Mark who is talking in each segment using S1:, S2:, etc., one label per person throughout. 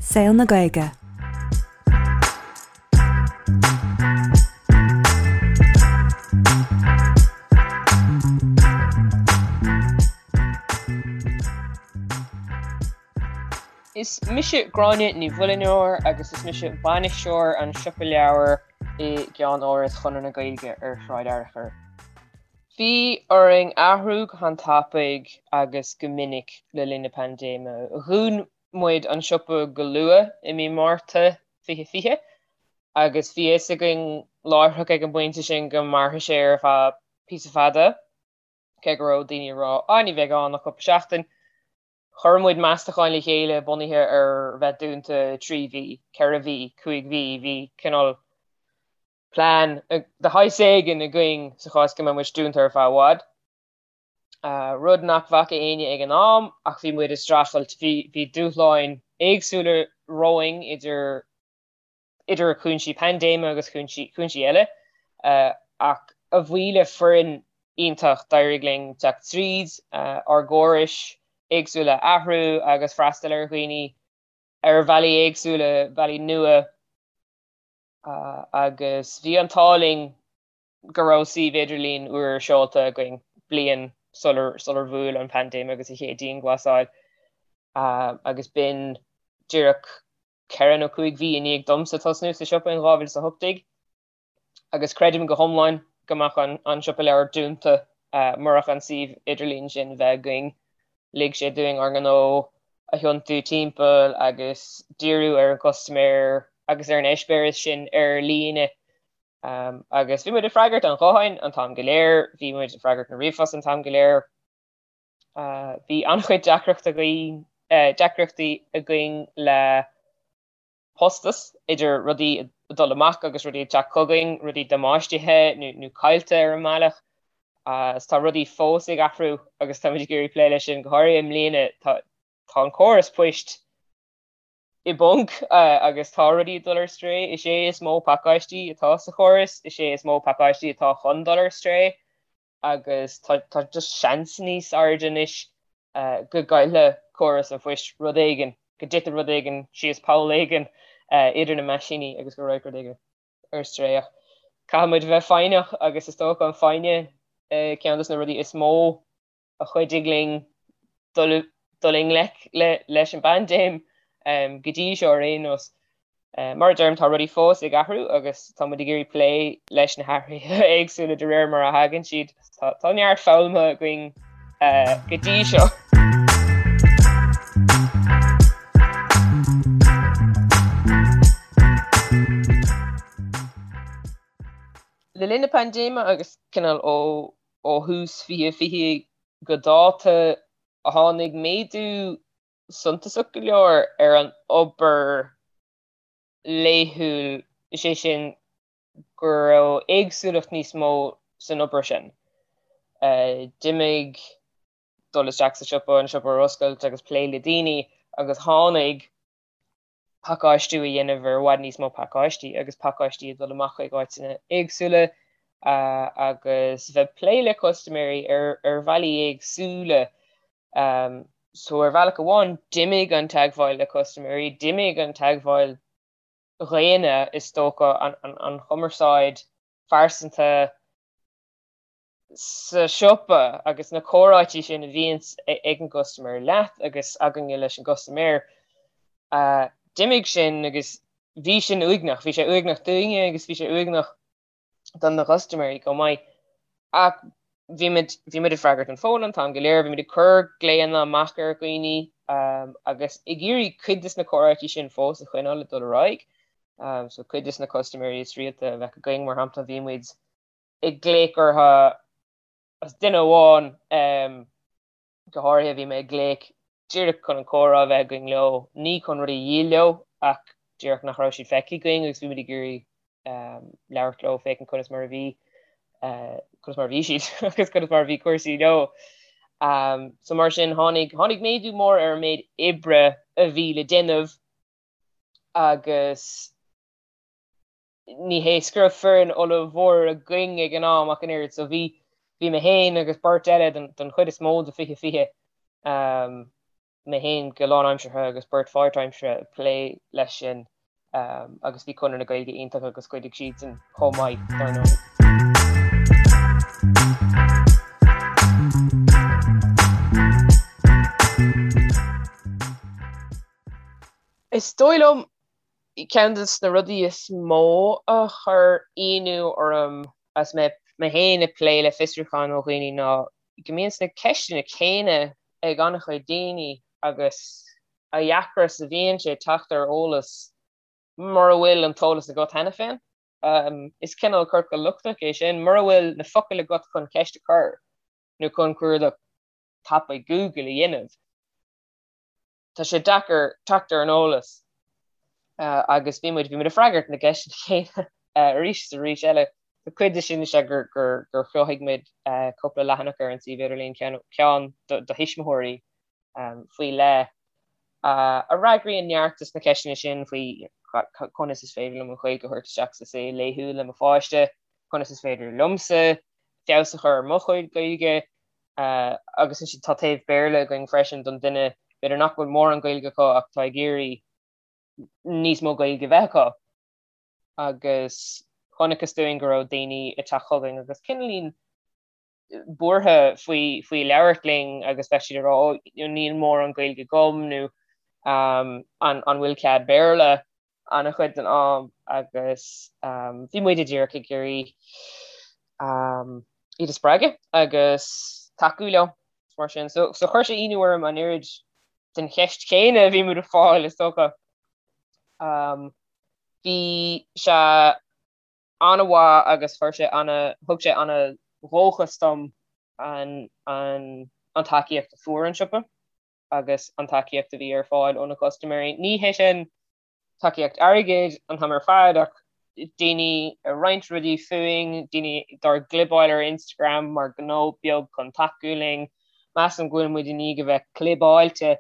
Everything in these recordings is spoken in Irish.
S1: Saol na Gaeilge.
S2: Is mise Gráinne Ní Mhuilneoir agus is mise bainisteoir an Siopa Leabhar i gceann-áras Chonradh na Gaeilge ar Shráid Fhearchair. Bhí orainn athrú go han-tapaidh agus go minic le linn na paindéime. Dhún muid an siopa go luath i mí Márta 2020 agus bhí a fhios againn láithreach ag an bpointe sin go mairfeadh sé ar feadh píosa fada, cé go raibh daoine ag rá 'á ní bheidh ann ach cúpla seachtain'. Chuir muid meastacháin le chéile bunaithe ar bheith dúnta 3 mhí, 4 mhí, 5 mhí, bhí cineál plean de shaghas éigin againn sa chás go mbeadh muid dúnta ar feadh i bhfad. Rud nach bhfaca éinne ag an am ach bhí muid ag streachailt, bhí dúshláin éagsúla romhainn idir idir chúinsí paindéime agus chúinsí chúinsí eile ach a bhuí le foireann iontach d'éirigh linn teacht tríd, ár gcórais éagsúla a athrú agus freastal ar dhaoine ar bhealaí éagsúla, bealaí nua. Agus bhí an t-ádh linn go raibh suíomh idirlín úr seolta againn bliain sular sular bhuail an paindéim agus an chéad dianghlasáil agus b'in díreach ceithre nó cúig mhí i ndiaidh domsa tosnú sa siopa in 2018. Agus creidim go hiomlán go mbeadh an siopa leabhar dúnta murach an suíomh idirlín sin bheith againn. Lig sé dúinn ár ngnó a thiontú timpeall agus díriú ar an gcustaiméir agus ar an eispéireas sin ar líne. Agus bhí muid ag freagairt an ghutháin an t-am go léir, bhí muid ag freagairt na ríomhphost an t-am go léir. Bhí an-chuid deacrachtaí againn le postas, idir rudaí ag dul amach agus rudaí ag teacht chugainn, rudaí damáistithe nó caillte ar an mbealach. Agus tá rudaí fós ag athrú agus táimid ag iarraidh plé leis sin, go háirithe i mbliana. Tá an córas poist i bponc agus tá rudaí ag dul ar strae. Is é is mó pacáistí atá sa chóras, is é is mó pacáistí atá chun dul ar strae. agus tá just seans níos airde anois go gcaillfidh córas an phoist rud éigin, go dtitfidh rud éigin síos poll éigin idir na meaisíní agus go raghadh rud éigin ar strae. Ach caithfidh muid a bheith foighneach agus is dócha an foighne ceann de na rudaí is mó a chuidigh linn dul i ngleic leis an bpaindéim go dtí seo ar aon nós. Mar a deirim, tá rudaí fós ag athrú agus tá muid ag iarraidh plé leis na hathruithe éagsúla de réir mar a thagann siad. Tá neart foghlamtha againn go dtí seo. Le linn na paindéime agus cineál ó ó thús 2020 go dáta, tháinig méadú suntasach go leor ar an obair laethúil, is é sin go raibh éagsúlacht níos mó san obair sin. D'imigh dul isteach sa siopa, an siopa a oscailt agus plé le daoine agus tháinig pacáistiú a dhéanamh ar i bhfad níos mó pacáistí agus pacáistí ag dul amach chuig áiteanna éagsúla agus bheith ag plé le custaiméirí ar bhealaí éagsúla. So ar bhealach amháin d'imigh an teagmháil le custaiméirí, d'imigh an teagmháil dhaonna is dócha, an chumarsáid phearsanta, sa siopa agus na comhráití sin a bhíonns ag an gcustaiméir leat agus againne leis an gcustaiméir, d'imigh sin agus bhí sin uaigneach, bhí sé uaigneach dúinne agus bhí sé uaigneach do na custaiméirí chomh maith. Ach bhí muid, bhí muid ag freagairt an fóin an t-am go léir, bhí muid ag cur glaonna amach ar dhaoine agus ag iarraidh cuid de na comhráití sin fós a choinneáil ag dul ar aghaidh. So cuid de na custaiméirí is rialta a bheadh againn, mar shampla, bhí muid ag glaoch orthu as duine amháin go háirithe, bhí mé ag glaoch díreach chun an comhrá a bheith againn leo, ní chun rudaí a dhíol leo ach díreach nach raibh siad feicthe againn agus bhí muid ag iarraidh labhairt leo féachaint conas mar a bhí conas mar a bhí siad agus conas mar a bhí cúrsaí leo. So mar sin tháinig tháinig méadú mór ar an méid oibre a bhí le déanamh agus ní hé go raibh foireann ollmhór againn ag an am ach an oiread, so bhí, bhí mé féin agus beirt eile don, don chuid is mó de 2020. Mé féin go lánaimseartha agus beirt pháirtaimseartha ag plé leis sin agus bhí Conradh na Gaeilge iontach agus chuidigh siadsan chomh maith, dar ndóigh. Is dóigh liom ceann de na rudaí is mó a chuir ionadh orm agus mé féin ag plé le fiosrúcháin ó dhaoine ná go mbíonn na ceisteanna céanna ag an-chuid daoine agus a dheacra is a bhíonn sé teacht ar eolas mura bhfuil an t-eolas agat cheana féin. Is cineál ciorcal lochtach é sin, mura bhfuil na focail agat chun ceist a chur nó chun cuardach tapaidh Google a dhéanamh. tá sé deacair teacht ar an eolas agus bhí muid, bhí muid ag freagairt na gceisteanna céanna arís is arís eile. Tá cuid de sin is ea gur, gur, gur chruthaigh muid cúpla leathanach ar an suíomh idirlín, ceann, ceann do, do thuismitheoirí faoi leith a fhreagraíonn neart de na ceisteanna sin faoi conas is féidir liom an Ghaeilge a thabhairt isteach sa saol laethúil le mo pháiste, conas is féidir liomsa feabhas a chur ar mo chuid Gaeilge, Agus ansin tá taobh Béarla againn freisin don duine b'fhéidir nach bhfuil mórán Gaeilge acu ach tá ag iarraidh níos mó Gaeilge a bheith acu. Agus chonacthas dúinn go raibh daoine ag teacht chugainn agus cineáilín buartha faoi faoi labhairt linn agus bheadh siad ag rá ó níl mórán Gaeilge agam nó an an bhfuil cead Béarla an-chuid den am agus bhí muide díreach ag iarraidh iad a spreagadh agus tacú leo mar sin. So, so chuir sé ionadh orm an oiread den cheist chéanna a bhí muid ag fáil is dócha. Um, bhí sé an-mhaith agus chuir sé ana, thug sé ana-dhóchas dom an, an, an tacaíocht a fuair an siopa. agus an tacaíocht a bhí ar fáil ó na custaiméirí. Ní hé sin tacaíocht airgid an t-am ar fad ach daoine ag roinnt rudaí fúinn, daoine dár gclibeáil ar Instagram mar gnó beag chun tacú linn. Measaim go bhfuil muid i ndiaidh a bheith clibeáilte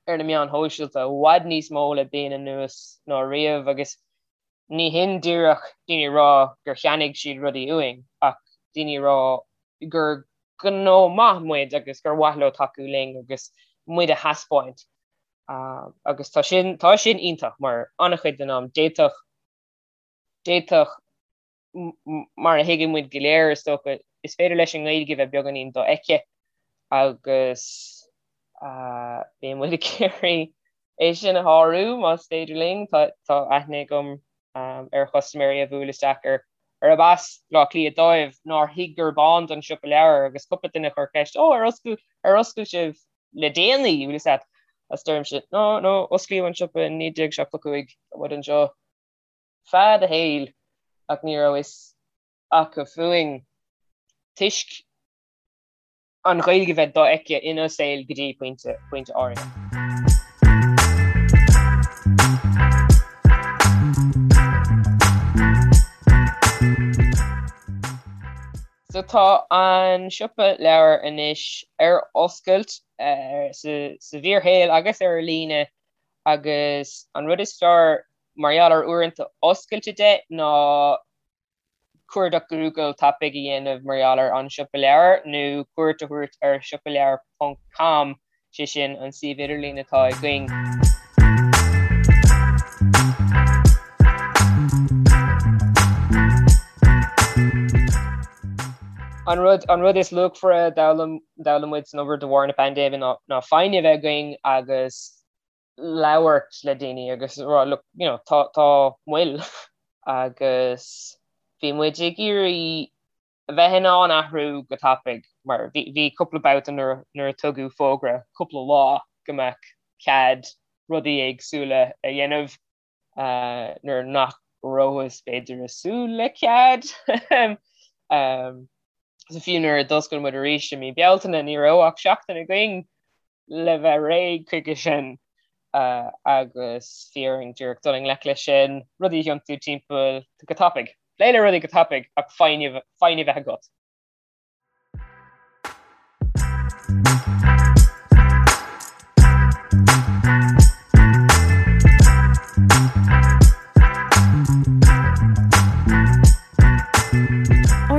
S2: ar na meáin shóisialta i bhfad níos mó le bliain anuas ná riamh agus ní hin díreach daoine ag rá gur cheannaigh siad rudaí uainn ach daoine ag rá gur gnó maith muid agus gur mhaith leo tacú linn agus muid a thaispeáint. Agus tá sin, tá sin iontach mar an-chuid den am d'fhéadfadh, d'fhéadfadh, mar a thuigeann muid go léir is dócha, is féidir leis an nGaeilge bheith beagáinín dofheicthe agus bíonn muid ag iarraidh é sin a shárú más féidir linn. Tá, tá aithne agam ar chustaiméirí a bhuail isteach ar arb as Baile Átha Cliath dóibh nár thuig gurb ann don siopa leabhar agus cúpla duine a chuir ceist, 'Ó, ar oscail, ar oscail sibh le déanaí? Bhfuil fhios a't? Agus deirimse, 'No, no, osclaíodh an siopa in 1975, tá muid anseo fad a shaoil ach ní raibh fhios acu fúinn toisc an Ghaeilge bheith dofheicthe ina saol go dtí pointe, pointe áirithe. So tá an siopa leabhar anois ar oscailt sa bhfíorshaol agus ar líne agus an rud is fearr mar gheall ar uaireanta oscailte de ná cuardach Google tapaidh a dhéanamh mar gheall ar An Siopa Leabhar nó cuairt a thabhairt ar siopaleabhar ponc com, sé sin an suíomh idirlín atá againn. An rud, an rud is luachmhaire a d'fhoghlaim, d'fhoghlaim muid san obair de bharr na paindéime ná, ná foighne a bheith againn agus labhairt le daoine agus rá look, you know, tá, tá moill agus bhí muid ag iarraidh a bheith in ann athrú go tapaidh mar bhí, bhí cúpla babhta nuair, nuair a tugadh fógra cúpla lá go mbeadh cead rudaí éagsúla a dhéanamh uh, nuair nach rabhthas b'fhéidir ag súil le cead. um, so fiú nuair a d'oscail muid arís i mí Bealtaine ní raibh ach seachtain againn le bheith réidh chuige sin agus bhí orainn díreach dul i ngleic leis sin, rudaí a thiontú timpeall go tapaidh. Plé le rudaí go tapaidh ach foighne a bheith agat.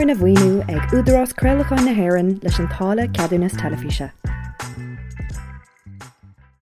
S1: Arna mhaoiniú ag Údarás Craolacháin na hÉireann leis an táille Ceadúnas Teilifíse.